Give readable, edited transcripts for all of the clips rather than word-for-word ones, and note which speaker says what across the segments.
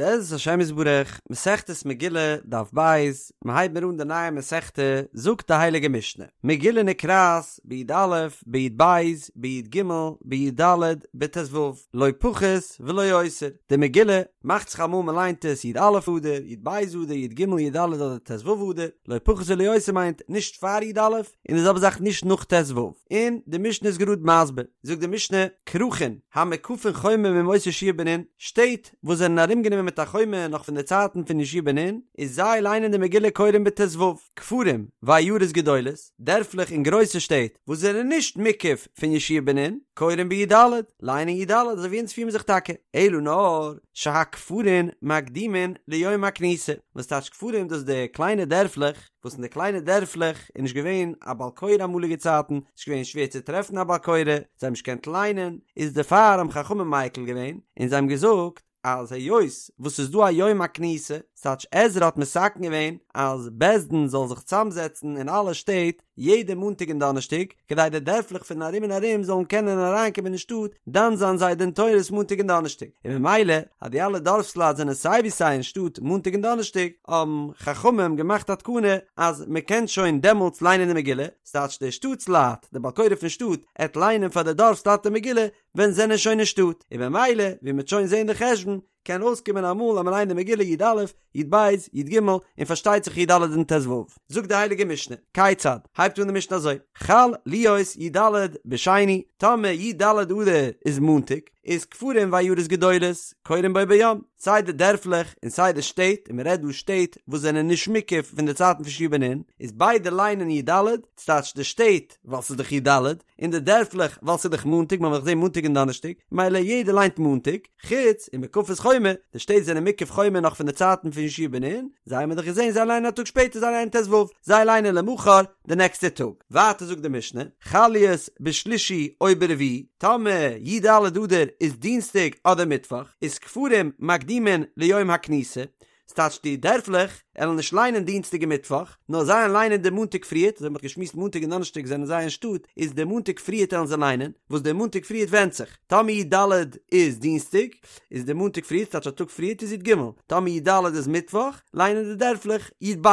Speaker 1: בעזרת השם יתברך, מסכת מגילה, דף ב', מיר הייבן מיר אן די נייע מסכתא, זאגט די הייליגע משנה, מגילה נקראת בי"א, בי"ב, בי"ג, בי"ד, בט"ו, לא פחות ולא יותר, די מגילה מאכט זיך אמאל מען ליינט עס י"א אדר, י"ב אדר, י"ג, י"ד אדער ט"ו אדר, לא פחות ולא יותר מיינט נישט פאר י"א, און די זעלבע זאך נישט נאך ט"ו, און די משנה איז גראד מסביר, זאגט די משנה, כרכין המוקפין חומה מימות יהושע בן נון, שטעט וואס זענען ארומגענומען מיט א חומה נאך פון די צייטן פון יהושע בן נון, איז זיי ליינען די מגילה קורין בט"ו, כפרים ועיירות גדולות, דערפלעך און גרויסע שטעט וואס זענען נישט מוקף פון יהושע בן נון, קורין בי"ד, ליינען י"ד אזוי ווי אונז פירן זיך טאקע, אלא נאר שהכפרים מקדימין ליום הכניסה, וואס טייטש כפרים דאס די קליינע דערפלעך, וואס אין די קליינע דערפלעך איז נישט געווען א בעל קורא אמאליגע צייטן, ס'איז געווען שווער צו טרעפן א בעל קורא, זיי האבן נישט געקענט ליינען, איז דערפאר האבן חכמים מיקל געווען, און זיי האבן געזאגט אז היות וואס ס'איז דא א יום הכניסה, ס'טייטש עזרא האט מתקן געווען אז בית דין זאל זיך צוזאמזעצן אין אלע שטעט יעדע מאנטאג און דאנערשטאג, כדי די דערפלעך פון ארום און ארום זאלן קענען אריינקומען אין שטאט דן זיין זיי דין תורות מאנטאג און דאנערשטאג, און ממילא אז די אלע דארפסלייט זענען סיי ווי סיי אין שטאט מאנטאג און דאנערשטאג, האבן חכמים געמאכט א תקנה אז מען קען שוין דעמאלטס ליינען די מגילה, ס'טייטש די שטאטס-לייט, די בעל קורא פון שטאט, עט ליינען פאר די דארפסלייט די מגילה ווען זענען שוין אין שטאט, און ממילא ווי מ'עט שוין זען די חשבון, קען אויסקומען אמאל אז מ'ליינט די מגילה י"א, י"ב, י"ג, און פארשטייט זיך י"ד און ט"ו. זאגט די הייליגע משנה, כיצד? הייבט אן די משנה אזוי, חל להיות י"ד בשני, טאמער י"ד אדר איז מאנטאג, איז כפרים ועיירות גדולות קורין בו ביום, סיי די דערפלעך און סיי די שטעט, און מ'רעדט דא שטעט וואס זענען נישט מוקף פון די צייטן פון יהושע בן נון, איז ביידע ליינען י"ד, ס'טייטש די שטעט ווייל ס'איז דאך י"ד, און די דערפלעך ווייל ס'איז דאך מאנטאג, מ'האט דאך געזען מאנטאג און דאנערשטאג, מילא יעדער ליינט מאנטאג, חוץ ומוקפות חומה, די שטעט זענען מוקף חומה נאך פון די צייטן פון יהושע בן נון, זיי האבן מיר דאך געזען זיי ליינען א טאג שפעטער זיי ליינען ט"ו, זיי ליינען למחר די נעקסטע טאג. ווייטער זאגט די משנה, חל להיות בשלישי או ברביעי, טאמער י"ד אדר איז דינסטאג אדער מיטוואך, איז כפרים מקדימין ליום הכניסה, ס'טייטש די דערפלעך עלן נישט ליינען דינסטאג און מיטוואך, נאר זיי עלן ליינען די מאנטאג פריערט, אזוי ווי מ'האט געשמועסט מאנטאג און דאנערשטאג זענען זיי אין שטאט, איז די מאנטאג פריערט עלן זיי ליינען, וואס די מאנטאג פריערט ווענדט זיך, טאמער י"ד איז דינסטאג, איז די מאנטאג פריערט, ס'טייטש א טאג פריערט איז י"ג, טאמער י"ד איז מיטוואך, ליינען די דערפלעך י"ב.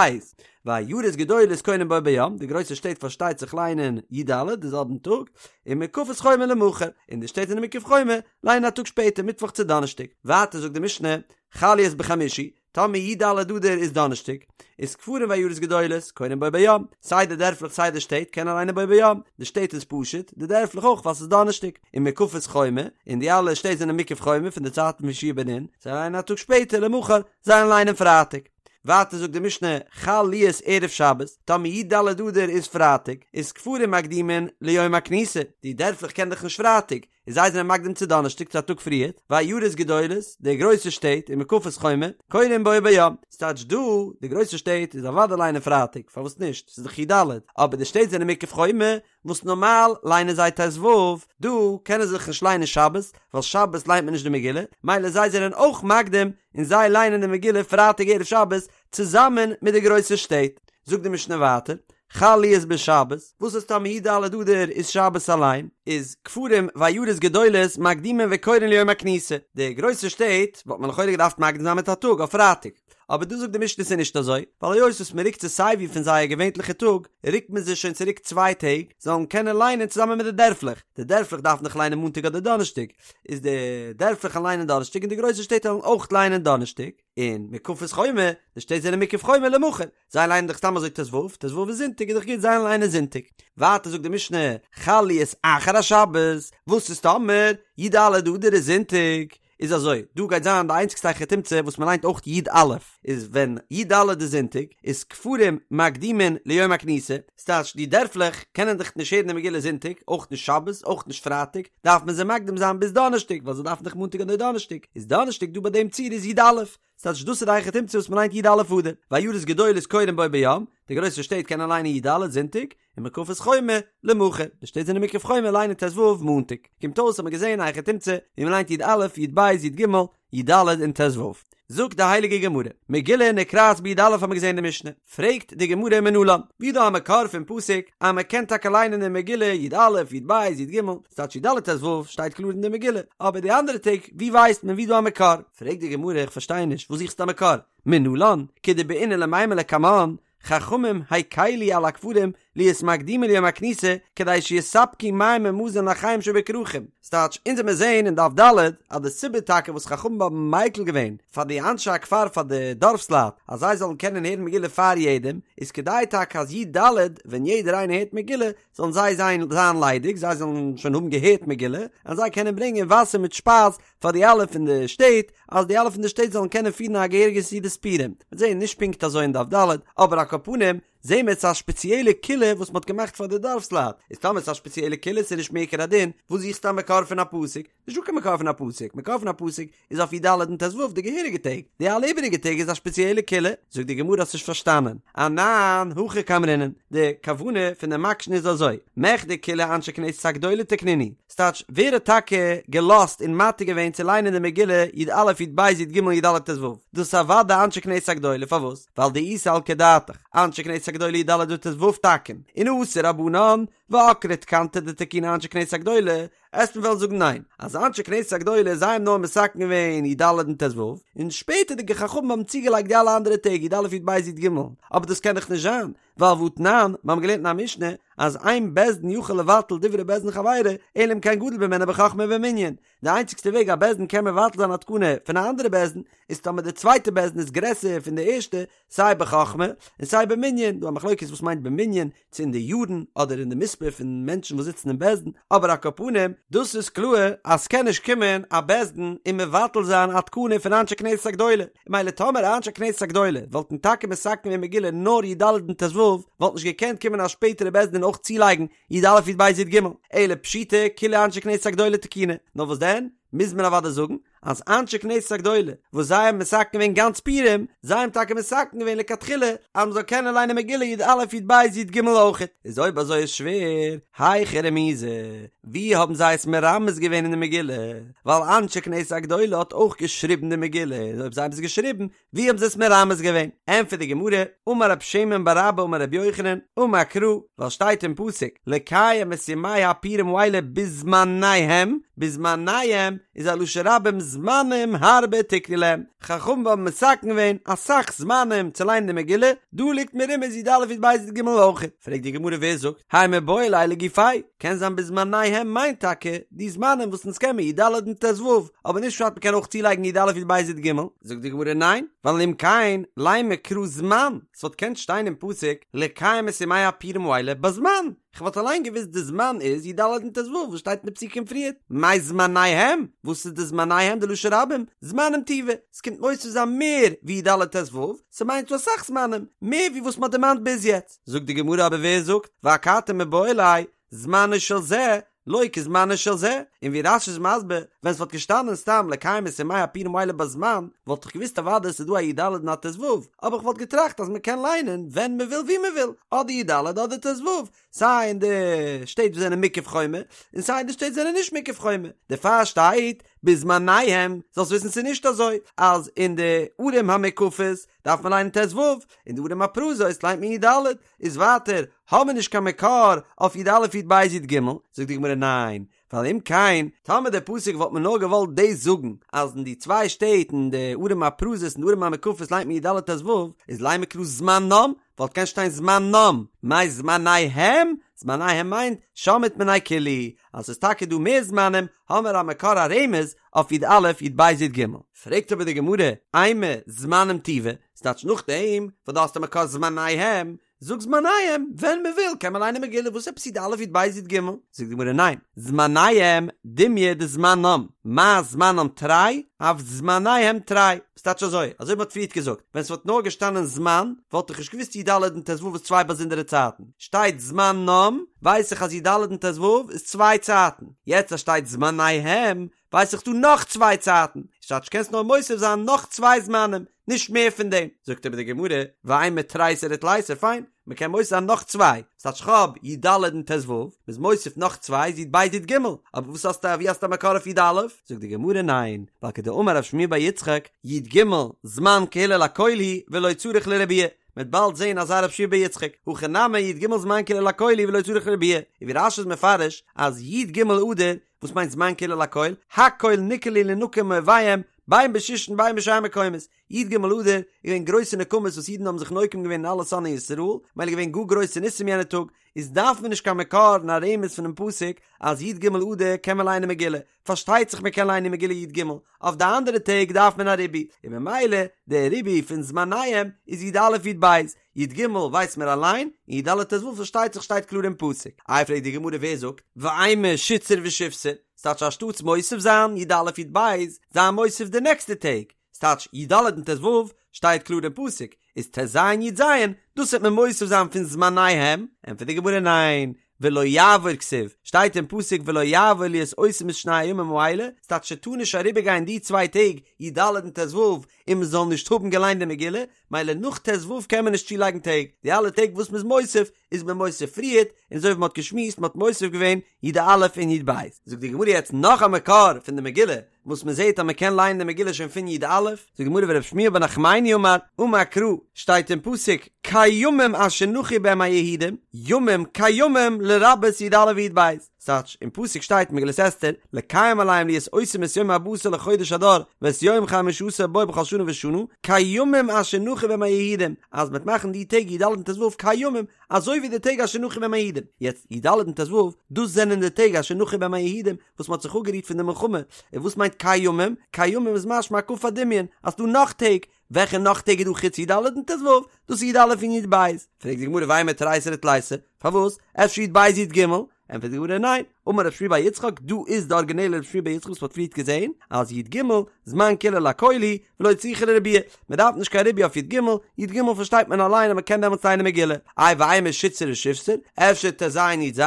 Speaker 1: ועיירות גדולות קורין בו ביום, די גרויסע שטעט פארשטייט זיך ליינען י"ד די זעלבן טאג, ומוקפות חומה למחר, און די שטעט זענען מוקף חומה, ליינען א טאג שפעטער מיטוואך צו דאנערשטאג. ווייטער זאגט די משנה, חל להיות בחמישי, טאמער י"ד אדר איז דאנערשטאג, איז כפרים ועיירות גדולות, קורין בו ביום, סיי די דערפלעך סיי די שטעט קענען ליינען בו ביום, די שטעט איז פשוט, די דערפלעך אויך ווייל ס'איז דאנערשטאג, ומוקפות חומה, און די אלע שטעט זענען מוקף חומה פון די צייטן פון יהושע בן נון, זיי ליינען א טאג שפעטער למחר, זיי ליינען פרייטאג. ווייטער זאגט די משנה, חל להיות ערב שבת, טאמער י"ד אדר איז פרייטאג, איז כפרים מקדימין ליום הכניסה, די דערפלעך קען דאך נישט פרייטאג, און זיי זענען מקדים צו דאנערשטאג צו א טאג פריערט, ועיירות גדולות, די גרויסע שטעט, ומוקפות חומה, קורין בו ביום, ס'טייטש דא, די גרויסע שטעט איז אוודאי ליינען פרייטאג, פארוואס נישט, ס'איז דאך י"ד, אבער די שטעט זענען מוקף חומה, וואס נארמאל ליינען זיי ט"ו, דא קענען זיי דאך נישט ליינען שבת, ווייל שבת ליינט מען נישט די מגילה, מילא זיי זענען אויך מקדים און זיי ליינען די מגילה פרייטאג ערב שבת צוזאמען מיט די גרויסע שטעט. זאגט די משנה ווייטער, חל להיות בשבת, וואס איז טאמער י"ד אדר איז שבת אליין, איז כפרים ועיירות גדולות מקדימין וקורין ליום הכניסה, די גרויסע שטעט וואלט מען לכאורה געדארפט מקדים זיין מיט א טאג אויף פרייטאג, אבער דא זאגט די משנה ס'איז נישט אזוי, ווייל היות וואס מ'רוקט זיי סייווי פון זייער געווענטליכע טאג, רוקט מען זיי שוין צוריק צוויי טעג, זאלן קענען ליינען צוזאמען מיט די דערפלעך, די דערפלעך דארפן דאך ליינען מאנטאג אדער דאנערשטאג, איז די דערפלעך וועלן ליינען דאנערשטאג און די גרויסע שטעט וועלן אויך ליינען דאנערשטאג. און מוקפות חומה, די שטעט זענען מוקף חומה למחר, זיי ליינען דאך סתם אזוי ט"ו, ט"ו איז זונטאג איז דאך גוט זיי ליינען זונטאג. ווייטער זאגט די משנה, חל להיות אחר השבת, וואס איז טאמער י"ד אדר איז זונטאג, איז אזוי, דא גייט זיין די איינציגסטע היכי תמצא וואס מען ליינט אויך י"א, איז ווען י"ד איז זונטאג, איז כפרים מקדימין ליום הכניסה, ס'טייטש די דערפלעך קענען דאך נישט הערן די מגילה זונטאג, אויך נישט שבת, אויך נישט פרייטאג, דארף מען זיי מקדים זיין ביז דאנערשטאג, ווייל זיי דארפן דאך מאנטאג אדער דאנערשטאג, איז דאנערשטאג דא ביי דעם ציור איז י"א, ס'טייטש דאס איז די היכי תמצא וואס מ'ליינט י"א אדר, ועיירות גדולות קורין בו ביום, די גרויסע שטעט קענען ליינען י"ד זונטאג, ומוקפות חומה למחר, די שטעט זענען מוקף חומה ליינען ט"ו מאנטאג, קומט אויס האט מען געזען א היכי תמצא ווי מ'ליינט י"א, י"ב, י"ג, י"ד און ט"ו. זאגט די הייליגע גמרא, מגילה נקראת בי"א האט מען געזען אין די משנה, פרעגט די גמרא מנלן, ווי דא א מקור פון פסוק אז מען קען טאקע ליינען די מגילה י"א י"ב י"ג, ס'טייטש י"ד ט"ו שטייט קלאר אין די מגילה, אבער די אנדערע טעג ווי ווייסט מען ווי דא א מקור? פרעגט די גמרא איך פארשטיי נישט וואס זוכסטו א מקור? מנלן, כדבעינן למימר לקמן, חכמים הקילו על הכפרים להיות מקדימין ליום הכניסה כדי שיספקו מים ומזון לאחיהם שבכרכים, ס'טייטש, אונז וועמיר זעהן אין דף ד' אז די סיבה טאקע וואס חכמים האבן מיקל געווען פאר די אנשי הכפר פאר די דארפסלייט אז זיי זאלן קענען הערן מגילה פאר יעדעם איז כדי טאקע אז י"ד ווען יעדער איינער הערט מגילה זאלן זיי זיין זיין ליידיג זיי זאלן שוין האבן געהערט מגילה און זיי קענען ברענגען וואסער מיט שפייז פאר די אלע פון די שטעט אז די אלע פון די שטעט זאלן קענען פירן א געהעריגע סעודת פורים. מ'וועט זעהן נישט פונקט אזוי אין דף ד' אבער על כל פנים זעהן מיר ס'איז א שפעציעלע קולא וואס מ'האט געמאכט פאר די דארפסלייט, איז טאמער ס'איז א שפעציעלע קולא ס'איז נישט מעיקר הדין, וואס זוכסטו א מקור פון א פסוק? נישטא קיין מקור פון א פסוק, מקור פון א פסוק איז אויף י"ד און ט"ו די געהעריגע טעג, די אלע איבעריגע טעג איז א שפעציעלע קולא. זאגט די גמרא האסט נישט פארשטאנען, אנן הכי קאמרינן, די כוונה פון די מקשן איז אזוי, מכדי כולהו אנשי כנסת הגדולה תקנינהו, ס'טייטש, ווער האט טאקע געלאזט און מתיר געווען צו ליינען די מגילה י"א י"ב י"ג י"ד ט"ו? דאס איז אוודאי אנשי כנסת הגדולה, פארוואס? ווייל דאי סלקא דעתך, אנשי כנסת הגדולה י"ד וט"ו תקון, און אתו רבנן, ועקרי תקנתא דתקינו אנשי כנסת הגדולה, עסט מען וועלן זאגן ניין, אז אנשי כנסת הגדולה זיי האבן נאר מתקן געווען י"ד און ט"ו, און שפעטערדיגע חכמים האבן צוגעלייגט די אלע אנדערע טעג י"א י"ב י"ג, אבער דאס קען דאך נישט זיין, ווייל והתנן, מיר האבן געלערנט אין א משנה, אז אין בית דין יכול לבטל דברי בית דין חברו, אלא אם כן גדול ממנו בחכמה ובמנין. די איינציגסטע וועג א בית דין קען מבטל זיין א תקנה פון א אנדערע בית דין, איז טאמער די צווייטע בית דין איז גרעסער פון די ערשטע, סיי בחכמה און סיי במנין, דא א מחלוקת וואס מיינט במנין, צו אין די יארן אדער אין די מספר פון מענטשן וואס זיצן אין בית דין, אבער על כל פנים, דאס איז קלאר אז ס'קען נישט קומען א בית דין און מבטל זיין א תקנה פון אנשי כנסת הגדולה, מילא טאמער אנשי כנסת הגדולה וואלטן טאקע מתקן געווען מגילה נאר י"ד און ט"ו, וואלט נישט געקענט קומען א שפעטערע בית דין און אויך צולייגן י"א י"ב י"ג, אלא פשיטא כולהו אנשי כנסת הגדולה תקינו, נאר וואס דען, מוז מען אוודאי זאגן אז אנשי כנסת הגדולה וואס זיי האבן מתקן געווען גאנץ פורים, זיי האבן טאקע מתקן געווען לכתחילה אז מען זאל קענען ליינען מגילה י"א י"ב י"ג אויכעט, איז אויב אזוי איז שווער, היכא רמיזא, ווי האבן זיי עס מרמז געווען אין די מגילה? ווייל אנשי כנסת הגדולה האט אויך געשריבן די מגילה, און אויב זיי האבן עס געשריבן, ווי האבן זיי עס מרמז געווען? ענטפערט די גמרא, אמר רב שמן בר אבא אמר רבי יוחנן, אמר קרא, ווייל שטייט אין פסוק, לקיים את ימי הפורים האלה בזמניהם, בזמניהם איז א לשון רבים זמנים הרבה תקנו להם, חכמים האבן מתקן געווען אסאך זמנים צו ליינען די מגילה, דא ליגט מרומז י"א י"ב י"ג אויך. פרעגט די גמרא ווער זאגט, האי מיבעי ליה לגופיה, קען זיין בזמניהם מיינט טאקע די זמנים וואס אונז קען מיר י"ד און ט"ו, אבער נישט פשט מ'קען אויך צולייגן י"א י"ב י"ג. זאגט די גמרא ניין, ווייל אם כן לימא קרא זמן, ס'וואלט קענט שטיין אין פסוק לקיים את ימי הפורים האלה בזמן, כ'וואלט אליין געוואוסט די זמן איז י"ד און ט"ו וואס שטייט אין די פסוקים פריערט, מאי זמניהם, וואס איז די זמניהם די לשון רבים, זמנים טובא, ס'קומט מוסיף זיין מער ווי י"ד ט"ו, ס'מיינט ס'דא אסאך זמנים, מער ווי וואס מ'האט דערמאנט ביז יעצט. זאגט די גמרא אבער ווער זאגט ואכתי מיבעי ליה זמנו של זה לא כזמנו של זה, און ווי רש"י איז מסביר, ווען ס'וואלט געשטאנען סתם לקיים את ימי הפורים האלה בזמן, וואלט איך געוואוסט אוודאי ס'איז דא א י"ד און א ט"ו, אבער כ'וואלט געטראכט אז מ'קען ליינען ווען מ'וויל וואו מ'וויל, אדער י"ד אדער ט"ו, סיי אין די שטעט וואס זענען מוקף חומה, און סיי אין די שטעט זענען נישט מוקף חומה, דערפאר שטייט בזמניהם, זאלסט וויסן ס'איז נישט אזוי אז אין די ערים המוקפות דארף מען ליינען ט"ו, אין די ערים הפרוזות ליינט מען י"ד, איז ווייטער האבן מיר נישט קיין מקור אויף י"א י"ב י"ג, זאגט די גמרא ניין, ווייל אם כן, טאמער דער פסוק וואלט מען נאר געוואלט דאס זאגן, אז אין די צוויי שטעט אין די ערים הפרוזות און די ערים המוקפות ליינט מען י"ד ט"ו, איז לימא קרא זמנם, וואלט קענט שטיין זמנם, מאי זמניהם? זמניהם מיינט שמעת מינה כולהו, אז ס'איז טאקע דא מער זמנים, האמער א מקור א רמז אויף י"א י"ב י"ג. פרעגט אבער די גמרא, אימא זמנים טובא, ס'טייטש נאכדעם וואס דו האסט א מקור זמניהם, זאג זמניהם, ווען מען וויל קען מען ליינען מגילה, וואס עפעס י"א י"ב י"ג? זאגט די גמרא ניין, זמניהם דומיא דזמנם, מה זמנם תרי, אף זמניהם תרי, ס'טייטש אזוי, אזוי ווי מ'האט פריערט געזאגט, ווען ס'וואלט נאר געשטאנען זמן, וואלט איך נישט געוואוסט י"ד און ט"ו איז צוויי באזונדערע צייטן, שטייט זמנם, ווייס איך אז י"ד און ט"ו איז צוויי צייטן, יעצט אז שטייט זמניהם, ווייס איך דא נאך צוויי צייטן, ס'טייטש קענסט נאר מוסיף זיין נאך צוויי זמנים. נישט מער פון דעם. זאגט אבער די גמרא, ואימא תריסר ותליסר, פיין, מען קען מוסיף זיין נאך צוויי, ס'טייטש כ'האב י ד און ט ו, מ'איז מוסיף נאך צוויי איז י ב י ג, אבער וואס האסטו ווי האסטו א מקור אויף י א? זאגט די גמרא ניין, ווייל כדאמר רב שמואל בר יצחק, י ג זמן קהילה לכל הוא ולא צריך לרבויי, מ'וועט באלד זעהן אזא רב שמואל בר יצחק, הכא נמי י ג זמן קהילה לכל הוא ולא צריך לרבויי, און ווי רש י איז מפרש אז י ג אדר, וואס מיינט זמן קהילה לכל, הכל נקהלו לינקם מאויביהם, בין בשושן בין בשאר מקומות, י ג אדר איז געווען גרויסע נקמות וואס אידן האבן זיך נוקם געווען אין אלע שונאי ישראל, מילא געווען גאר גרויסע ניסים יענע טאג, איז דארף מען נישט קיין מקור און א רמז פונעם פסוק אז י ג אדר קען מען ליינען מגילה, פארשטייט זיך מען קען ליינען מגילה י ג, אויף די אנדערע טעג דארף מען א ריבוי, און ממילא דער ריבוי פון זמניהם איז י א י ב, י ג ווייסט מען אליין, און י ד ט ו פארשטייט זיך שטייט קלאר אין פסוק. איי פרעגט די גמרא ווער זאגט, ואימא שיתסר ושיבסר, ס'טייטש אנשטאטס מוסיף זיין י א י ב, זיי מוסיף די נעקסטע טעג, ס'טייטש י ד און ט ו שטייט קלאר אין פסוק, איז ט ז י ז, דאס וועט מען מוסיף זיין פון זמניהם, ענטפערט די גמרא ניין, ולא יעבור כתיב, שטייט אין פסוק ולא יעבור להיות עושים את שני הימים האלה, ס'טייטש ס'טאר נישט אריבערגיין די צוויי טעג י ד און ט ו און מ'זאל נישט האבן געליינט די מגילה, מילא נאך ט ו קען מען נישט צולייגן טעג, די אלע טעג וואס מ'איז מוסיף איז מען מוסיף פריערט, און אזוי ווי מ'האט געשמועסט מ'האט מוסיף געווען י א און י ב. זאגט די גמרא יעצט נאך א מקור פון די מגילה, וואס מען זעט אז מען קען לייענען די מגילה שוין פון י א, זאגט די גמרא ורב שמואל בר נחמני אמר, אמר קרא, שטייט אין פסוק, כימים אשר נחו בהם היהודים, ימים כימים לרבות י א וי"ב, ס'טייטש, אין פסוק שטייט אין מגילת אסתר, לקיים עליהם להיות עושים את יום ארבעה עשר לחודש אדר, ואת יום חמשה עשר בו בכל שנה ושנה, כימים אשר נחו בהם היהודים, אז מ'וועט מאכן די טעג י ד און ט ו כימים, אזוי ווי די טעג אשר נחו בהם היהודים. יעצט, י ד און ט ו, דאס זענען די טעג אשר נחו בהם היהודים, וואס מ'האט זיך אפגערוהט פון די מלחמה, און וואס מיינט כימים? כימים איז משמע הקפת דמיון, אז ס'דא נאך טעג, וועלכע נאך טעג איז דא חוץ י ד און ט ו? דאס איז י א און י ב. פרעגט די גמרא ואימא תריסר ותליסר, פארוואס? אפשר י ב י ג? ענטפערט די גמרא ניין, אמר רב שמואל בר יצחק, דא איז די ארגינעלע רב שמואל בר יצחק וואס מ'האט פריערט געזעהן, אז י ג זמן קהילה לכל הוא ולא צריכה לרבויי, מ'דארף נישט קיין ריבוי אויף י ג, י ג פארשטייט מען אליין אז מ'קען דעמאלטס ליינען מגילה, איי ואימא שיתסר ושיבסר, אפשר ט ז י ז?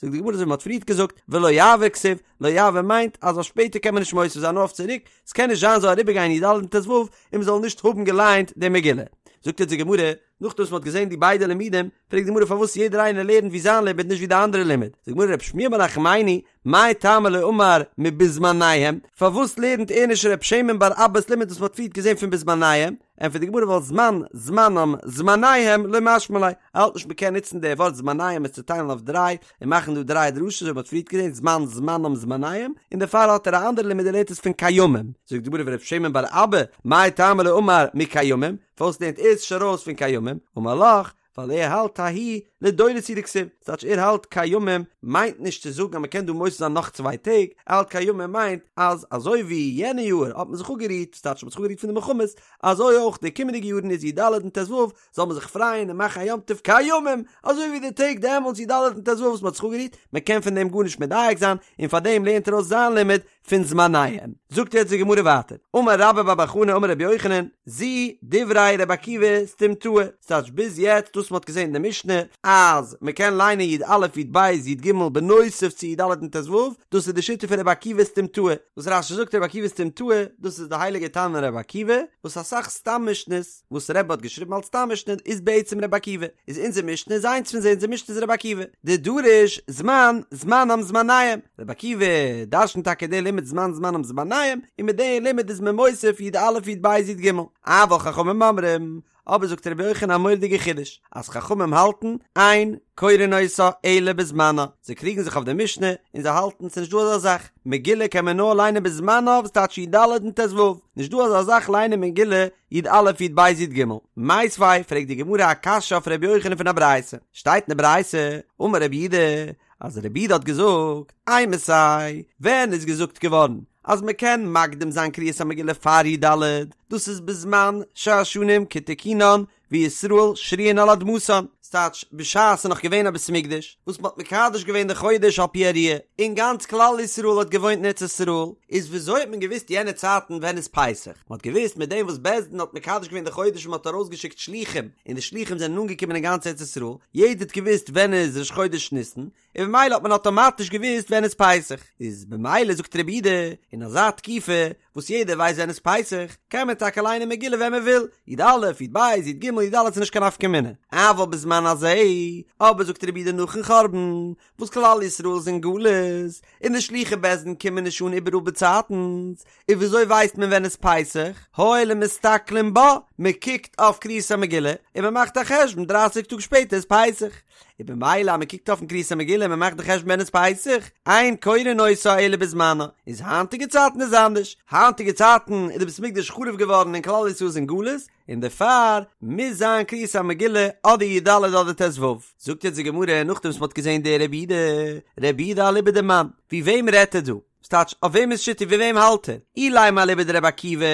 Speaker 1: זאגט די גמרא אזוי ווי מ'האט פריערט געזאגט, ולא יעבור כתיב, לא יעבור מיינט אז אויף שפעטער קען מען נישט מוסיף זיין נאר אויף צוריק, ס'קען נישט זיין זאל אריבערגיין י ד און ט ו און מ'זאל נישט האבן געליינט די מגילה. זאגט אונז די גמרא, נאכדעם וואס מ'האט געזען די ביידע לימודים, פרעגט די גמרא פארוואס יעדער איינער לערנט ווי זיין לימוד נישט ווי די אנדערע לימוד, זאגט די גמרא רב שמואל בר נחמני, מאי טעמא לא אמר מבזמניהם, פארוואס לערנט ער נישט ר' שמן בר אבא'ס לימוד וואס מ'האט פריערט געזען פון בזמניהם, ענטפערט די גמרא ווייל זמן, זמנם, זמניהם, לא משמע ליה, ער האלט נישט מ'קען נוצן די ווארט זמניהם עס צו טיילן אויף דריי, און מאכן דא דריי דרשות אזוי ווי מ'האט פריערט געזען זמן, זמנם, זמניהם, און דערפאר האט ער א אנדערע לימוד ער לערנט עס פון כימים, זאגט די גמרא ורב שמן בר אבא, מאי טעמא לא אמר מכימים, פארוואס לערנט ער עס נישט ארויס פון כימים, אמר לך, ווייל ער האלט ההוא לדורות הוא דכתיב, ס'טייטש ער האלט כימים מיינט נישט צו זאגן אז מ'קען דא מוסיף זיין נאך צוויי טעג, ער האלט כימים מיינט אז אזוי ווי יענע יאר האט מען זיך אפגערוהט, ס'טייטש מ'האט זיך אפגערוהט פון די מלחמות, אזוי אויך די קומענדיגע יארן איז י ד און ט ו זאל מען זיך פרייען און מאכן א יום טוב כימים, אזוי ווי די טעג דעמאלטס י ד און ט ו וואס מ'האט זיך אפגערוהט, מ'קען פון דעם גארנישט מדייק זיין, און פארדעם לערנט ער אויס זיין לימוד פון זמניהם. זאגט יעצט די גמרא ווייטער, אמר רבה בר בר חנה אמר רבי יוחנן, זו דברי רבי עקיבא סתימתאה, ס'טייטש ביז יעצט דאס מ'האט געזען אין די משנה אז מ'קען ליינען י א י ב י ג בנוסף צו י ד און ט ו, דאס איז די שיטה פון רבי עקיבא סתימתאה, וואס רש י זאגט רבי עקיבא סתימתאה, דאס איז די הייליגע תנא רבי עקיבא, וואס אסאך סתם משנה'ס וואס רבי האט געשריבן אלס סתם משנה איז בעצם רבי עקיבא, איז אונזער משנה איז איינס פון זיי, אונזער משנה איז רבי עקיבא, דדריש זמן זמנם זמניהם, רבי עקיבא דרשנט טאקע די לימוד זמן זמנם זמניהם, און מיט די לימוד איז מען מוסיף י א י ב י ג, אבל חכמים אומרים, אבער זאגט רבי יוחנן א מורא'דיגע חידוש, אז חכמים האלטן, אין קורין אותה אלא בזמנה, זיי קריגן זיך אויף די משנה, און זיי האלטן ס'נישט דא אזא זאך, מגילה קען מען נאר ליינען בזמנה וואס טייטש י ד און ט ו, נישט דא אזא זאך ליינען מגילה י א י ב י ג. מיתיבי, פרעגט די גמרא א קשיא אויף רבי יוחנן פון א ברייתא, שטייט אין די ברייתא, אמר רבי יהודה, אז רבי יהודה האט געזאגט, אימתי, ווען איז געזאגט געווארן אז מען קען מקדים זיין קריאת המגילה פאר י ד, דאס איז בזמן שהשנים כתיקונן וישראל שרויין על אדמתן, ס'טייטש, בשעת ס'איז נאך געווען א בית המקדש, וואס מ'האט מקדש געווען די חודש על פי הראיה, און גאנץ כלל ישראל האט געוואוינט אין ארץ ישראל, איז וויאזוי האט מען געוואוסט יענע צייטן ווען איז פסח? מ'האט געוואוסט מיט דעם וואס בית דין האט מקדש געווען די חודש און מ'האט ארויסגעשיקט שלוחים, און די שלוחים זענען אנגעקומען אין גאנץ ארץ ישראל, יעדער האט געוואוסט ווען איז ראש חודש ניסן, און במילא האט מען אטאמאטיש געוואוסט ווען איז פסח, איז במילא זאגט רבי יהודה, אין אזא תקופה. וואס יעדער ווייסט ווען איז פסח, קען מען טאקע ליינען מגילה ווען מען וויל, י א, י ב, י ג, י ד איז נישט קיין נפקא מינה. אבל בזמן הזה, אבער זאגט רבי יהודה נאכן חורבן, וואס כלל ישראל איז אין גלות, און די שלוחי בית דין קומען נישט אן איבעראל באצייטנס, און וויאזוי ווייסט מען ווען איז פסח? הואיל ומסתכלין בה, מען קוקט אויף קריאת המגילה און מען מאכט א חשבון דרייסיג טאג שפעטער איז פסח, און במילא אז מען קוקט אויפן קריאת המגילה און מען מאכט די חשבון ווען איז פסח, אין קורין אותה אלא בזמנה, איז היינטיגע צייטן איז אנדערש, היינטיגע צייטן איז די בית המקדש חרוב געווארן און כלל ישראל איז אין גלות, און דערפאר מוז זיין קריאת המגילה אדער י ד אדער ט ו. זאגט יעצט די גמרא נאכדעם וואס מען האט געזען די רבי יהודה, רבי יהודה אליבא דמאן, ווי וועם רעדט ער דא? ס'טייטש, אויף וועמענס שיטה ווי וועם האלט ער? אילימא אליבא דרבי עקיבא,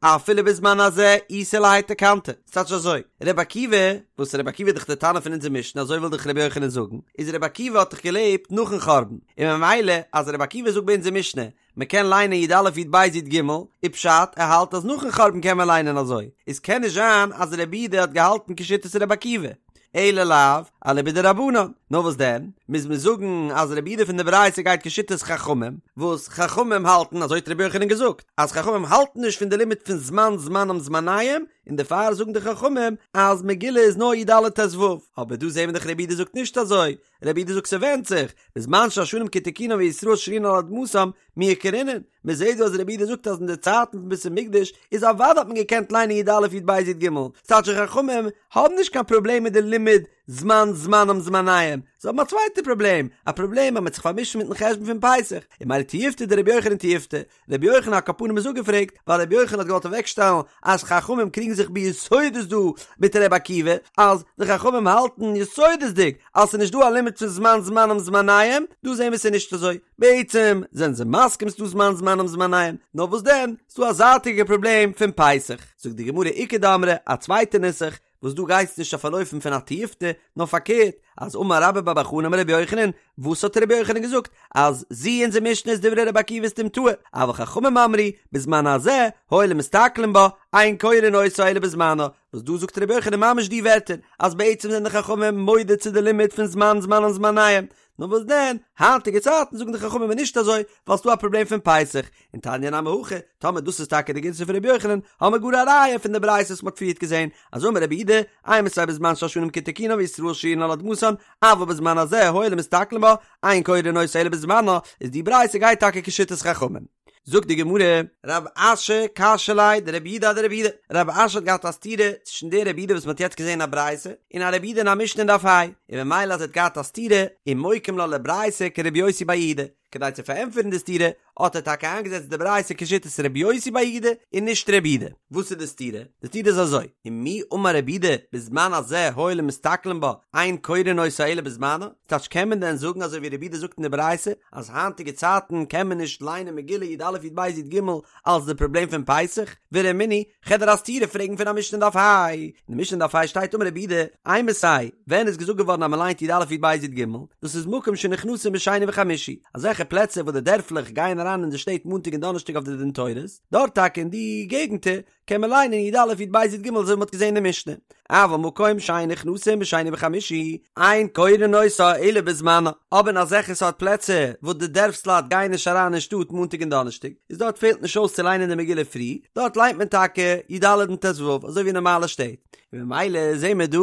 Speaker 1: אפילו בזמן הזה איתא להאי תקנתא. ס'טייטש אזוי, רבי עקיבא, וואס רבי עקיבא איז דאך דער תנא פון אונזער משנה, אזוי וויל דאך רבי יוחנן זאגן, איז רבי עקיבא האט דאך געלעבט נאכן חורבן, און ממילא אז רבי עקיבא זאגט ביי אונזער משנה, מ'קען ליינען י א י ב י ג, איז פשט, ער האלט אז נאכן חורבן קען מען ליינען אזוי, איז קען נישט זיין אז רבי יהודה האט געהאלטן כשיטת רבי עקיבא. אלא לאו, אליבא דרבנן. נאר וואס דען? מוז מען זאגן אז רבי יהודה פון די ברייתא גייט כשיטת חכמים, וואס חכמים האלטן, אזוי האט רבי יוחנן געזאגט, אז חכמים האלטן נישט פון די לימוד פון זמן זמנם זמניהם, און דערפאר זאגן די חכמים אז מגילה איז נאר י ד ט ו. אבער דא זעהן מיר דאך רבי יהודה זאגט נישט אזוי, רבי יהודה זאגט ס'ווענדט זיך, בזמן שהשנים כתיקונן וישראל שרויין על אדמתם, מיהא קרינן, מען זעהט דא אז רבי יהודה זאגט אז אין די צייטן פון בית המקדש איז אוודאי האט מען געקענט ליינען י א י ב י ג, ס'טייטש די חכמים האבן נישט קיין פראבלעם מיט די לימוד זמן זמנם זמניהם, זיי האבן א צווייטע פראבלעם, א פראבלעם אז מען האט זיך פארמישט מיטן חשבון פון פסח, און ממילא תיובתא דרבי יוחנן תיובתא, רבי יוחנן על כל פנים איז אפגעפרעגט, ווייל רבי יוחנן האט געוואלט אוועקשטעלן אז חכמים קריגן זיך ביסודות דא מיט רבי עקיבא, אז די חכמים האלטן יסודות'דיג אז ס'איז נישט דא א לימוד פון זמן זמנם זמניהם, דא זעהן מיר ס'איז נישט אזוי, בעצם זענען זיי מסכים ס'דא זמן זמנם זמניהם, נאר וואס דען, ס'דא א זייטיגע פראבלעם פון פסח. זאגט די גמרא איכא דאמרי, א צווייטע נוסח, וואס דא גייסט נישט אויף אן אופן פון א תיובתא, נאר פארקערט, אז אמר רבה בר בר חנה אמר רבי יוחנן, וואס האט רבי יוחנן געזאגט? אז זו אונזער משנה איז דברי רבי עקיבא סתומתאה, אבל חכמים אמרו, בזמן הזה, הואיל ומסתכלין בה, אין קורין אותה אלא בזמנה, וואס דא זאגט רבי יוחנן ממש די ווערטער, אז בעצם זענען די חכמים מודה צו די לימוד פון זמן זמנם זמניהם, נאר וואס דען, היינטיגע צייטן זאגן די חכמים איז נישט אזוי, ווייל ס'דא א פראבלעם פון פסח, און תניא נמי הכי, טאמער דאס איז טאקע די גירסא פון רבי יוחנן, האמער גאר א ראיה פון די ברייתא וואס מ'האט פריערט געזען, אז אמר רבי יהודה, אימתי בזמן שהשנים כתיקונן וישראל שרויין על אדמתן, אבל בזמן הזה הואיל ומסתכלין בה, אין קורין אותה אלא בזמנה, איז די ברייתא גייט טאקע כשיטת חכמים. זאגט די גמרא, רב אשי קשיא ליה דרבי יהודה אדרבי יהודה, רב אשי האט געהאט א סתירה צווישן די רבי יהודה וואס מען האט יעצט געזען אין א ברייתא, און א רבי יהודה אין א משנה אין דף ה', און ממילא אז ער האט געהאט א סתירה, ומוקים לה לברייתא כרבי יוסי בר יהודה, כדי צו פארענטפערן די סתירה, האט ער טאקע איינגעזעצט די ברייתא כשיטת רבי יוסי בר יהודה און נישט רבי יהודה. וואס איז די סתירה? די סתירה איז אזוי, ומי אמר רבי יהודה בזמן הזה הואיל ומסתכלין בה, אין קורין אותה אלא בזמנה, ס'טייטש קען מען דען זאגן אזוי ווי רבי יהודה זאגט אין די ברייתא אז היינטיגע צייטן קען מען נישט ליינען מגילה י א י ב י ג אלס די פראבלעם פון פסח? ורמינהי, כ'וועל דיר א סתירה פרעגן פון א משנה אין דף ה. אין די משנה אין דף ה שטייט אמר רבי יהודה, אימתי, ווען איז געזאגט געווארן אז מען ליינט י א י ב י ג? דאס איז מקום שנכנסין בשני וחמישי, אזעלכע פלעצער וואס די דערפלעך גייען אריין אין די שטעט מאנטאג און דאנערשטאג אויף די דין תורות, דארט טאקע אין די געגנטער קען מען ליינען י א י ב י ג אזוי ווי מ'האט געזען אין די משנה, אבל מקום שאין נכנסין בשני וחמישי, אין קורין אותה אלא בזמנה, אבער אין אזעלכע סארט פלעצער וואס די דערפסלייט גייען נישט אריין אין שטאט מאנטאג און דאנערשטאג, איז דארט פעלט נישט אויס צו ליינען די מגילה פרי, דארט ליינט מען טאקע י ד און ט ו אזוי ווי אין נארמאלע שטעט, און ממילא זעהן מיר דא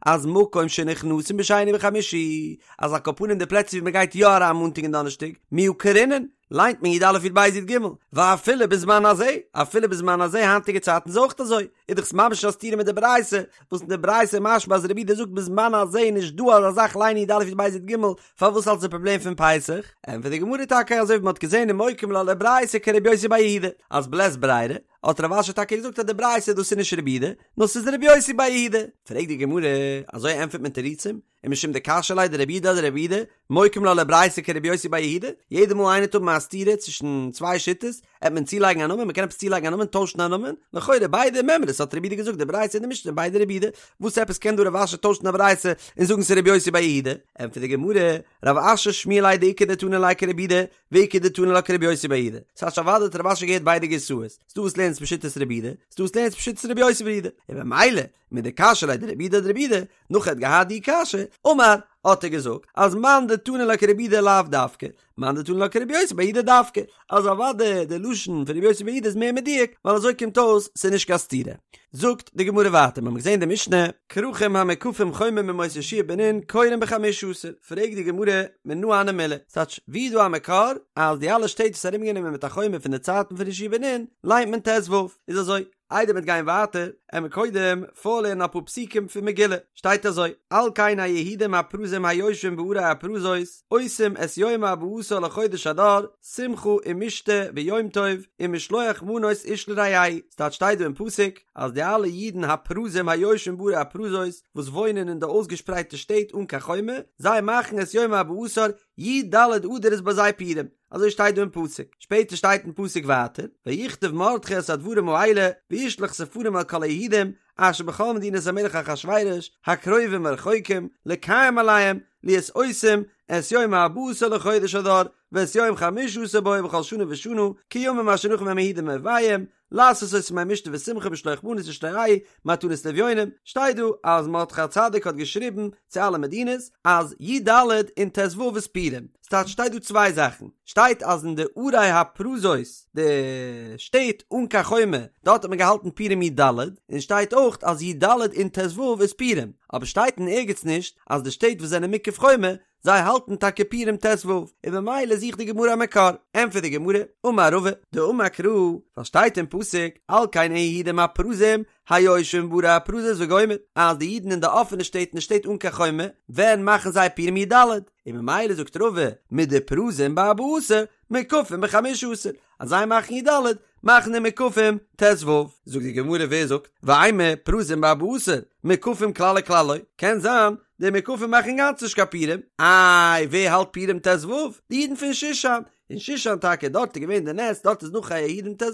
Speaker 1: אז מקום שנכנסין בשני וחמישי, אז על כל פנים די פלעצער ווי מ'גייט יא אריין מאנטאג און דאנערשטאג, מיהא קרינן, ליינט מען י א י ב י ג, ואפילו בזמן הזה, אפילו בזמן הזה היינטיגע צייטן איז אויך אזוי, איז דאך ממש א סתירה מיט די ברייתא, וואס אין די ברייתא איז משמע אז רבי יהודה זאגט בזמן הזה איז נישט דא אזא זאך ליינען י א י ב י ג, פארוואס אלס די פראבלעם פון פסח? ענטפערט די גמרא טאקע אזוי ווי מען האט געזען ומוקים לה לברייתא כרבי יוסי בר יהודה, אז בלית ברירה, האט רב אשי טאקע געזאגט אז די ברייתא דאס איז נישט רבי יהודה, נאר ס'איז רבי יוסי בר יהודה. פרעגט די גמרא, אזוי ענטפערט מען תירוצים? ומשום דקשיא ליה דרבי יהודה אדרבי יהודה, מוקים לה לברייתא כרבי יוסי בר יהודה, יעדע מאל איינער וועט האבן א סתירה צווישן צוויי שיטות, עט מען צולייגן א נאמען, מען קען עפעס צולייגן א נאמען, טוישן א נאמען, לכאורה ביידע מימרות האט רבי יהודה געזאגט די ברייתא און די משנה ביידע רבי יהודה, וואס עפעס קען דא רב אשי טוישן א ברייתא און זאגן ס'איז רבי יוסי בר יהודה? ענטפערט די גמרא, רב אשי שמיע ליה דאיכא דתני לה כרבי יהודה, ואיכא דתני לה כרבי יוסי בר יהודה, ס'טייטש אוודאי האט רב אשי געהערט ביידע גירסאות, ס'דא וואס לערנט עס בשיטת רבי יהודה, ס'דא וואס לערנט עס בשיטת רבי יוסי בר יהודה, און במילא, מדקשיא ליה דרבי יהודה אדרבי יהודה, נאך ער האט געהאט די קשיא, אמר, האט ער געזאגט אז מאן דתני לה כרבי יהודה לאו דווקא, מאן דתני לה כרבי יוסי בר יהודה דווקא, אז אוודאי די לשון פון רבי יוסי בר יהודה איז מער מדויק, ווייל אזוי קומט אויס ס'איז נישט קיין סתירה. זאגט די גמרא ווייטער, מ'האמיר געזען די משנה, כרכים המוקפים חומה מימות יהושע בן נון קורין בחמשה עשר, פרעגט די גמרא, מנא הני מילי, ס'טייטש, ווי איז דא א מקור אז די אלע שטעט וואס איז ארומגענומען מיט א חומה פון די צייטן פון יהושע בן נון ליינט מען ט"ו, איז אזוי, איידער מ'וועט גיין ווייטער, עמיר קודם פארלערנען אפאר פסוקים פון מגילה, שטייט אזוי, על כן היהודים הפרוזים היושבים בערי הפרזות, עושים את יום ארבעה עשר לחודש אדר, שמחה ומשתה ויום טוב, ומשלוח מנות איש לרעהו, ס'טייטש שטייט דא אין פסוק, אז די אלע אידן הפרוזים היושבים בערי הפרזות, וואס וואוינען אין די אויסגעשפרייטע שטעט אן קיין חומה, זיי מאכן את יום ארבעה עשר, י"ד אדר איז ביי זיי פורים. אזוי שטייט דא אין פסוק, שפעטער שטייט אין פסוק ווייטער, ויכתב מרדכי את הדברים האלה וישלח ספרים אל כל היהודים אשר בכל מדינות המלך אחשורוש הקרובים והרחוקים לקיים עליהם להיות עושים את יום הארבעה עשר לחודש אדר ואת יום חמשה עשר בו בכל שנה ושנה כימים אשר נחו בהם היהודים מאויביהם לעשות אותם ימי משתה ושמחה ומשלוח מנות איש לרעהו מתנות לאביונים, שטייט דא אז מרדכי הצדיק האט געשריבן צו אלע מדינות אז י"ד און ט"ו איז פורים, ס'טייטש שטייט דא צוויי זאכן, שטייט אז אין די ערי הפרזות די שטעט אן קיין חומה דארט האט מען געהאלטן פורים י"ד, און שטייט אויך אז י"ד און ט"ו איז פורים, אבער שטייט אין ערגעץ נישט אז די שטעט וואס זענען מוקף חומה זיי האלטן טאקע פורים ט"ו, און במילא זוכט די גמרא א מקור, ענטפערט די גמרא, אמר רבא, דאמר קרא, ווייל שטייט אין פסוק, על כן היהודים הפרוזים, היושבים בערי הפרזות וגומר, אז די אידן אין די אפענע שטעט און די שטעט אן קיין חומה, ווען מאכן זיי פורים י"ד, און ממילא זאגט רבא, מדפרוזים בארבעה עשר, מוקפים בחמשה עשר, אז זיי מאכן י"ד, מאכן די מוקפים ט"ו. זאגט די גמרא ווער זאגט, ואימא פרוזים בארבעה עשר, מוקפים כלל וכלל לא, קען זיין די מוקפים מאכן אינגאנצן נישט קיין פורים, איי ווער האלט פורים ט"ו? די אידן פון שושן, אין שושן טאקע דארט איז געווען די נס דארט איז נחו היהודים ט"ו,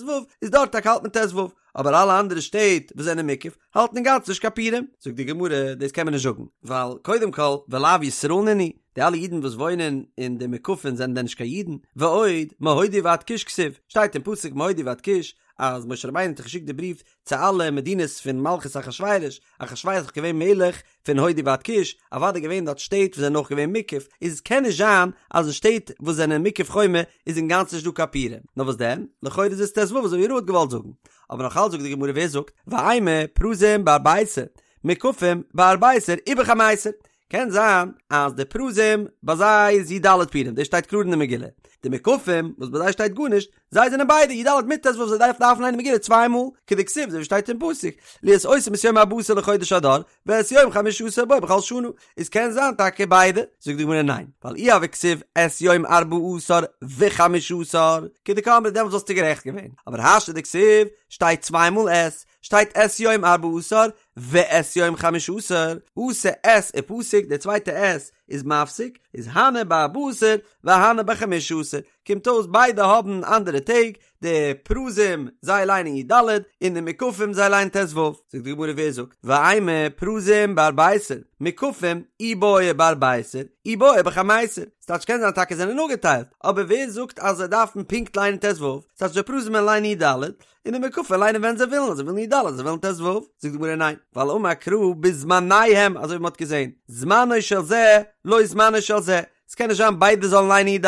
Speaker 1: איז דארט טאקע האלט מען ט"ו, אבער אלע אנדערע שטעט וואס זענען מוקף האלטן אינגאנצן נישט קיין פורים, זאגט די גמרא דאס קען מען נישט זאגן, ווייל קודם כל ולאו ישראל נינהו, די אלע אידן וואס וואוינען אין די מוקפים זענען דען נישט קיין אידן? ועוד, מהודו ועד כוש כתיב, שטייט אין פסוק מהודו ועד כוש, אז משה רבינו האט געשיקט די בריוו צו אלע מדינות פון מלכות אחשורוש, אחשורוש איז דאך געווען מלך פון הודו ועד כוש, אוודאי געווען דארט שטעט וואס זענען אויך געווען מוקף, איז קען נישט זיין אז אין שטעט וואס זענען מוקף חומה איז אינגאנצן נישט דא קיין פורים, נאר וואס דען? לכאורה איז עס ט"ו אזוי ווי רבא האט געוואלט זאגן. אבער נאך אלץ זאגט די גמרא ווער זאגט? ואימא פרוזים בארבעה עשר, מוקפים בארבעה עשר ובחמיסר. קען זיין אז די פרוזים ביי זיי איז י"ד פורים, דאס שטייט קלאר אין די מגילה, די מוקפים וואס ביי זיי שטייט גארנישט, זיי זענען ביידע י"ד מיט ט"ו זיי דארפן דארפן ליינען מגילה צוויי מאל, כדכתיב אזוי ווי שטייט אין פסוק, להיות עושים את יום ארבעה עשר לחודש אדר, ואת יום חמשה עשר בו בכל שנה, איז קען זיין טאקע ביידע, זאגט די גמרא ניין, ווייל אי הוה כתיב את יום ארבעה עשר וחמשה עשר, כדקאמרת דעמאלטס וואלסטו גערעכט געווען, אבער השתא דכתיב שטייט צוויי מאל את, שטייט את יום ארבעה עשר ואת יום חמשה עשר, אתא את ופסיק, די צווייטע את איז מפסיק, איז הני בארבעה עשר והני בחמשה עשר, קומט אויס ביידע האבן אנדערע טעג, די פרוזים זיי ליינען י"ד און די מוקפים זיי ליינען ט"ו, זאגט די גמרא ווער זאגט, ואימא פרוזים בארבעה עשר, מוקפים אי בעו בארבעה עשר, אי בעו בחמיסר, ס'טייטש קען זיין טאקע זענען אפגעטיילט, אבער ווער זאגט אז זיי דארפן פונקט ליינען ט"ו, ס'טייטש די פרוזים וועלן ליינען י"ד, און די מוקפים ליינען ווען זיי ווילן, אז זיי ווילן י"ד, אז זיי ווילן ט"ו, זאגט די גמרא ניין, ווייל אמר קרא בזמניהם, אזוי ווי מ'האט געזען, זמנו של זה לא זמנו של זה, ס'קען נישט זיין ביידע זאלן ליינען י"ד,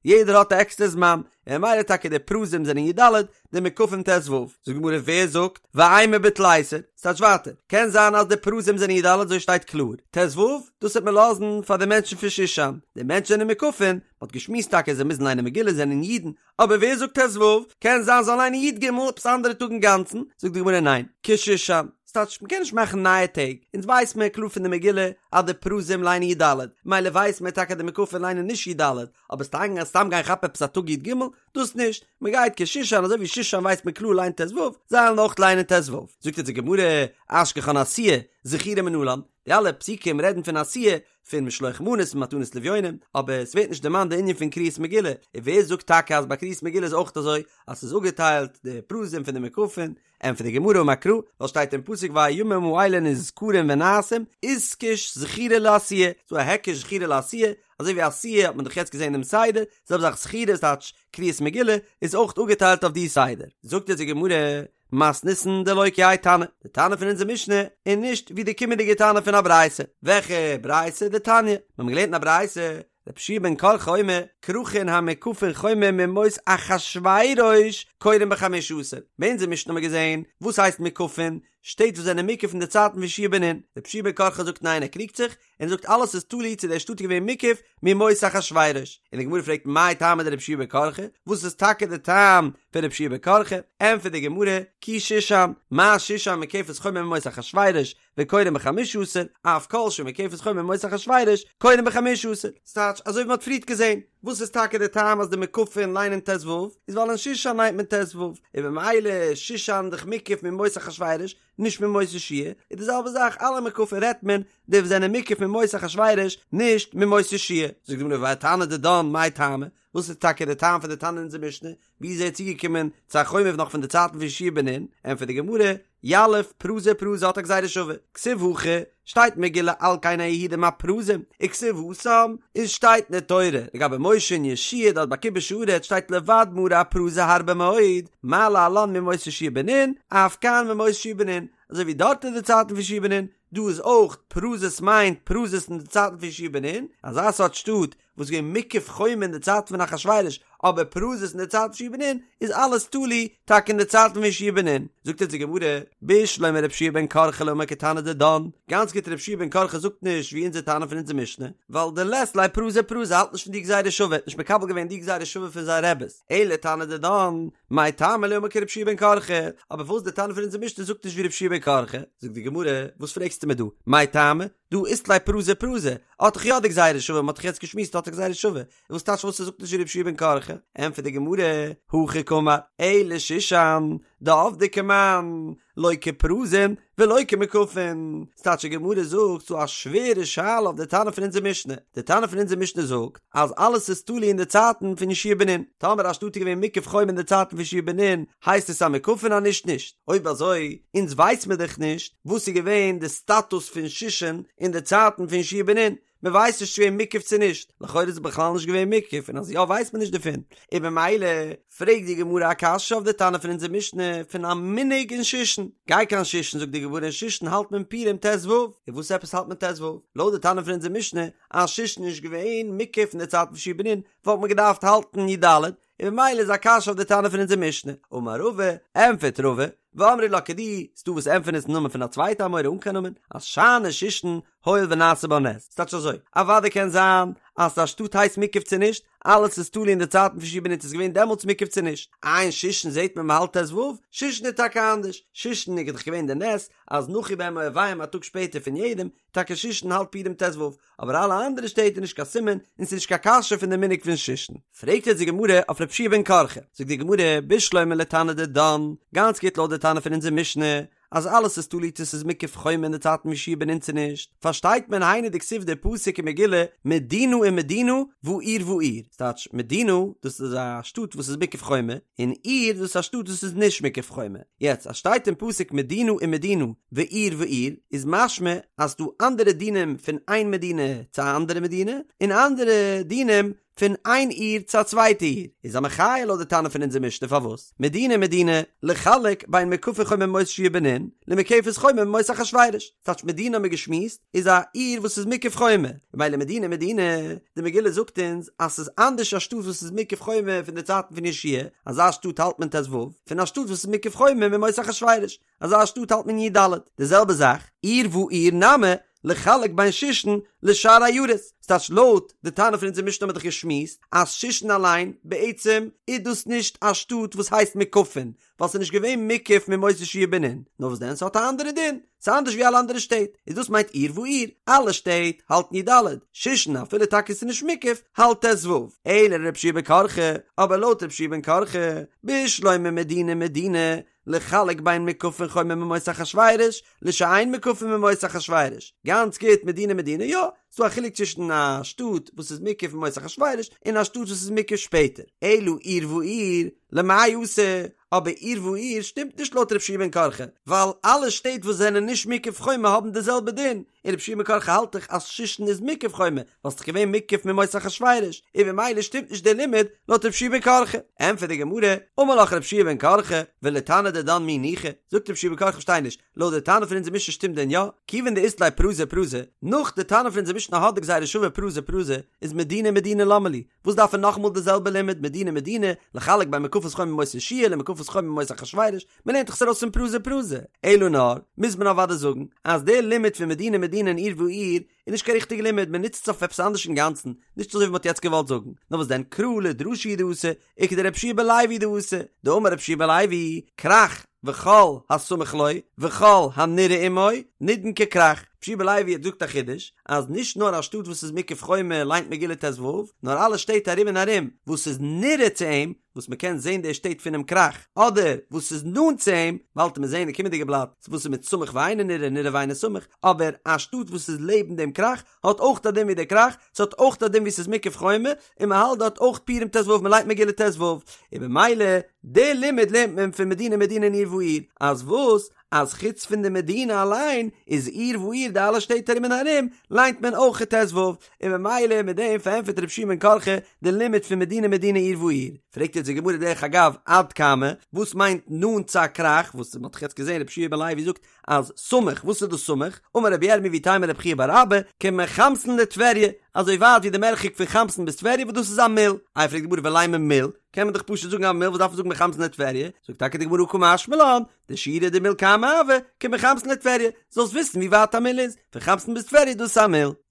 Speaker 1: יעדער האט א עקסטער זמן, און ממילא טאקע די פרוזים זענען י"ד, די מוקפים ט"ו. זאגט די גמרא ווער זאגט, ואימא בתליסר, ס'טייטש ווייטער, קען זיין אז די פרוזים זענען י"ד אזוי שטייט קלאר, ט"ו, דאס וועט מען לאזן פאר די מענטשן פון שושן, די מענטשן זענען מוקפים, מ'האט געשמועסט טאקע זיי מוזן ליינען מגילה זענען אידן, אבער ווער זאגט ט"ו? קען זיין זאל ליינען י"ג עפעס אנדערע טאג אינגאנצן, זאגט די גמרא ניין, כשושן, ס'טייטש מ'קען נישט מאכן נייע טעג, אונז ווייס מיר קלאר פון די מגילה אז די פרוזים ליינען י"ד, מילא ווייס מיר טאקע אז די מוקפים ליינען נישט י"ד, אבער סתם סתם גיין כאפן עפעס א טאג י"ג, דאס נישט, מ'גייט כשושן אזוי ווי שושן ווייסט מען קלאר ליינט ט"ו, זיי וועלן אויך ליינען ט"ו. זאגט אונז די גמרא, אשכחן עשיה, זכירה מנלן, די אלע פסוקים רעדן פון עשיה, פון משלוח מנות און מתנות לאביונים, אבער עס ווערט נישט דערמאנט די ענין פון קריאת מגילה, און ווער זאגט טאקע אז ביי קריאת מגילה איז אויך אזוי אז ס'איז אפגעטיילט די פרוזים פון די מוקפים, ענטפערט די גמרא אמר קרא, ווייל שטייט אין פסוק והימים האלה נזכרים ונעשים, איתקש זכירה לעשיה, ס'דא א היקש זכירה לעשיה, אזוי ווי עשיה האט מען דאך יעצט געזען דעם סדר, זעלבע זאך זכירה איז טייטש קריאת מגילה איז אויך אפגעטיילט אויף די סדר. זאגט אונז די גמרא. מתניתין דלא כי האי תנא, די תנא פון אונזער משנה איז נישט ווי די קומענדיגע תנא פון א ברייתא, וועלכע ברייתא? דתניא, מיר האבן געלערנט אין א ברייתא, רבי יהושע בן קרחה אומר, כרכין המוקפין חומה מימות אחשורוש קורין בחמשה עשר. ביי אונזער משנה האבן מיר געזען וואס הייסט מוקפין, שטעט וואס זענען מוקף אין די צייטן פון יהושע בן נון. רבי יהושע בן קרחה זאגט ניין ער קריגט זיך, און זאגט אלעס איז תלוי צו דער שטאט איז געווען מוקף מימות אחשורוש. און די גמרא פרעגט מאי טעמא דרבי יהושע בן קרחה, וואס איז טאקע די טעם פון רבי יהושע בן קרחה? ענטפערט די גמרא, כי שושן, מה שושן מוקפת חומה מימות אחשורוש, וקורין בחמשה עשר, אף כל שמוקפת חומה מימות אחשורוש, קורין בחמשה עשר. ס'טייטש, אזוי ווי מ'האט פריערט געזען, וואס איז טאקע די טעם אז די מוקפין ליינען ט ו, איז ווייל אין שושן ליינט מען ט ו, און במילא שושן דאך מוקף מימות אחשורוש, נישט מימות יהושע, איז די זעלבע זאך אלע מוקפין רעדט מען די וואס זענען מוקף מימות אחשורוש, נישט מימות יהושע. זאגט די גמרא ותנא דידן מאי טעמא, וואס איז טאקע די טעם פון די תנא אין אונזער משנה, ווי איז ער צוגעקומען צו א חומה נאך פון די צייטן פון יהושע בן נון? ענטפערט די גמרא, יליף פרזי פרזי האט א גזירה שווה, כתיב הכא, שטייט מגילה על כן היהודים הפרזים, וכתיב התם, און שטייט אין די תורה לגבי משה און יהושע דארט ביי כיבוש הארץ שטייט לבד מערי הפרזי הרבה מאוד, מה להלן מימות יהושע בן נון, אף כאן מימות יהושע בן נון, אזוי ווי דארט אין די צייטן פון יהושע בן נון, דא איז אויך פרזות מיינט פרזות אין די צייטן פון יהושע בן נון, אזא סארט שטאט וואס איז געווען מוקף חומה אין די צייטן פון אחשורוש, אבער פרזות אין די צייטן פון יהושע בן נון, איז אלעס תלוי טאקע אין די צייטן פון יהושע בן נון. זאגט אונז די גמרא, בשלמא רבי יהושע בן קרחה לא אמר כתנא דידן, גאנץ גוט רבי יהושע בן קרחה זאגט נישט ווי אונזער תנא פון אונזער משנה, ווייל דלית ליה פרזי פרזי האלט נישט פון די גזירה שווה, האט נישט מקבל געווען די גזירה שווה פון זיין רעבעס, אלא תנא דידן, מאי טעמא לא אמר כרבי יהושע בן קרחה, אבער פארוואס די תנא פון אונזער משנה זאגט נישט ווי רבי יהושע בן קרחה? זאגט די גמרא, וואס פרעגסטו מיר דא, מאי טעמא? דהא אית ליה פרזי פרזי, האט דאך יא די גזירה שווה, מ'האט דאך יעצט געשמועסט האט א גזירה שווה, וואס טייטש וואס ער זאגט נישט ווי רבי יהושע בן קרחה? ענטפערט די גמרא, הכי קאמר, אלא שושן, דעבדי כמאן, לא כפרזין ולא כמוקפין, ס'טייטש די גמרא זאגט ס'דא א שווערע שאלה אויף די תנא פון אונזער משנה, די תנא פון אונזער משנה זאגט אז אלעס איז תלוי אין די צייטן פון יהושע בן נון, טאמער א שטאט איז געווען מוקף חומה אין די צייטן פון יהושע בן נון, הייסט עס א מוקפין אז נישט נישט, אויב אזוי אונז ווייס מיר דאך נישט וואס איז געווען די סטאטוס פון שושן אין די צייטן פון יהושע בן נון, מען ווייסט נישט צו געווען מוקף צו נישט, לכאורה איז עס בכלל נישט געווען מוקף און אז יא ווייסט מען נישט דערפון, און במילא פרעגט די גמרא א קשיא אויף די תנא פון אונזער משנה פון א מנהג אין שושן, גיי קיין שושן זאגט די גמרא אין שושן האלט מען פורים ט ו, און וואס עפעס האלט מען ט ו? לויט די תנא פון אונזער משנה אז שושן איז נישט געווען מוקף אין די צייטן פון יהושע בן נון וואלט מען געדארפט האלטן י ד, און במילא איז א קשיא אויף די תנא פון אונזער משנה. אמר רבא, ענטפערט רבא, ואמרי לה כדי, ס'דא וואס ענטפערן עס אין נאמען פון א צווייטע אמורא אן קיין נאמען, אז שאני שושן הואיל ונעשה בה נס. ס'טייטש אזוי, אוודאי קען זיין אז א שטאט הייסט מוקף צו נישט, אלעס איז תלוי אין די צייטן פון יהושע בן נון צו ס'איז געווען דעמאלטס מוקף צו נישט. איי אין שושן זעט מען מ'האלט ט ו, שושן איז טאקע אנדערש, שושן איז דאך געווען די נס אז נחו בהם אויביהם א טאג שפעטער פון יעדעם, טאקע שושן האלט פורים ט ו, אבער אלע אנדערע שטעט איז נישט קיין סימן און ס'איז נישט קיין קשיא פון די מנהג פון שושן. פרעגט יעצט די גמרא אויף רבי יהושע בן קרחה, זאגט די גמרא, בשלמא לתנא דידן, גאנץ גוט לויט די תנא פון אונזער משנה, אז אלעס איז תלוי צו ס'איז מוקף חומה אין די צייטן פון יהושע בן נון צו נישט, פארשטייט מען היינו דכתיב די פסוק אין מגילה מדינה ומדינה ועיר ועיר, ס'טייטש מדינה דאס איז א שטאט וואס איז מוקף חומה, און עיר דאס איז א שטאט וואס איז נישט מוקף חומה. יעצט אז שטייט אין פסוק מדינה ומדינה ועיר ועיר איז משמע אז ס'דא אנדערע דינים פון איין מדינה צו א אנדערע מדינה און אנדערע דינים פון איין עיר צו א צווייטע עיר איז א מחיה לויט די תנא פון אונזער משנה פארוואס מדינה ומדינה לחלק בין מוקפת חומה מימות יהושע בן נון למוקפת חומה מימות אחשורוש ס'טייטש מדינה האבן מיר געשמועסט איז א עיר וואס איז מוקף חומה, ממילא מדינה מדינה, די מגילה זאגט אונז אז ס'איז אנדערש א שטאט וואס איז מוקף חומה פון די צייטן פון יהושע, אזא שטאט האלט מען ט ו, פון א שטאט וואס איז מוקף חומה מימות אחשורוש, אזא שטאט האלט מען י ד. די זעלבע זאך, עיר ועיר נמי, לחלק בין שושן לשאר עיירות, ס'טייטש לויט די תנא פון אונזער משנה האבן מיר דאך געשמועסט אז שושן אליין בעצם איז דאס נישט א שטאט וואס הייסט מוקפין, ווייל ס'איז נישט געווען מוקף מימות יהושע בן נון, נאר וואס דען ס'האט א אנדערע דין, ס'איז אנדערש ווי אלע אנדערע שטעט, איז דאס מיינט עיר ועיר, אלע שטעט האלטן י ד, שושן אפילו טאקע ס'איז נישט מוקף, האלט ט ו, אלא לרבי יהושע בן קרחה, אבער לויט רבי יהושע בן קרחה, בשלמא מדינה מדינה, לחלק בין מוקפין חומה מימות אחשורוש, לשאין מוקפין מימות אחשורוש, גאנץ גוט מדינה מדינה יא, ס'דא א חילוק צווישן א שטאט וואס איז מוקף מימות אחשורוש און א שטאט וואס איז מוקף שפעטער. אלא עיר ועיר, למאי אתא, אבער עיר ועיר שטימט נישט לויט רבי יהושע בן קרחה, ווייל אלע שטעט וואס זענען נישט מוקף חומה האבן די זעלבע דין, און רבי יהושע בן קרחה האלט דאך אז שושן איז מוקף חומה, ווייל ס'דאך געווען מוקף מימות אחשורוש, און במילא שטימט נישט דער לימוד לויט רבי יהושע בן קרחה. ענטפערט די גמרא, אמר לך רבי יהושע בן קרחה, ולתנא דידן מי ניחא, זאגט רבי יהושע בן קרחה כ'פארשטיי נישט, לויט די תנא פון אונזער משנה שטימט דען יא? כיוון דאית ליה פרזי פרזי, נאך די תנא פון אונזער משנה האט די גזירה שווה פרזי פרזי, איז מדינה מדינה למה לי? וואס דארף ער נאכאמאל די זעלבע לימוד מדינה מדינה, לחלק בין מוקפות חומה בימות יהושע למוקפות חומה בימות אחשורוש, מען לערנט דאך עס ארויס פון פרזי פרזי. אלא נאר, מוז מען אוודאי זאגן, אז דער לימוד פון מדינה מדינה און עיר ועיר, איז נישט קיין ריכטיגע לימוד, מען נוצט עס אויף עפעס אנדערש אינגאנצן, נישט אזוי ווי מען האט יעצט געוואלט זאגן, נאר וואס דען קרא לדרשה הוא דאתא, וכדרבי יהושע בן לוי דאתא, דאמר רבי יהושע בן לוי, כרך וכל הסמוך לו, וכל הנראה עמו, נידון ככרך. רבי יהושע בן לוי האט געזאגט א חידוש, אז נישט נאר א שטאט וואס איז מוקף חומה ליינט מגילה ט"ו, נאר אלע שטעט ארום און ארום וואס איז נראה צו אים, וואס מען קען זען די שטעט פונעם כרך, אדער וואס איז נאנט צו אים, באלד וועט מען זען אין קומענדיגע בלאט וואס איז מיט סמוך ואינו נראה, נראה ואינו סמוך, אבער א שטאט וואס איז לעבן דעם כרך, האט אויך א דין ווי דער כרך, ס'האט אויך א דין ווי ס'איז מוקף חומה, און מ'האלט דארט אויך פורים ט"ו, מ'ליינט מגילה ט"ו, און במילא די לימוד לערנט מען פון מדינה מדינה און עיר ועיר, אז וואס? אז חוץ פון די מדינה אליין איז עיר ועיר די אלע שטעט ארום און ארום ליינט מען אויך ט"ו, און במילא מיט דעם פארענטפערט רבי יהושע בן קרחה די לימוד פון מדינה מדינה עיר ועיר. פרעגט יעצט די גמרא דרך אגב עד כמה, וואס מיינט נאנט צו א כרך, וואס מ'האט דאך יעצט געזען רבי יהושע בן לוי זאגט אז סמוך, וואס איז דאס סמוך? אמר רבי ירמי' ואיתימא רבי חייא בר אבא, כמחמסין לטבריה, אזוי ווייט ווי די מרחק פון חמסין ביז טבריה וואס דאס איז א מיל. איי פרעגט די גמרא ולימא מיל, קען מען דאך פשוט זאגן א מיל וואס דארף מען זאגן מחמסין לטבריה? זאגט טאקע די גמרא קא משמע לן, דשיעורא דמיל כמה הוי, כמחמסין לטבריה, זאלסט וויסן ווי ווייט א מיל איז, פון חמסין ביז טבריה דאס איז א מיל.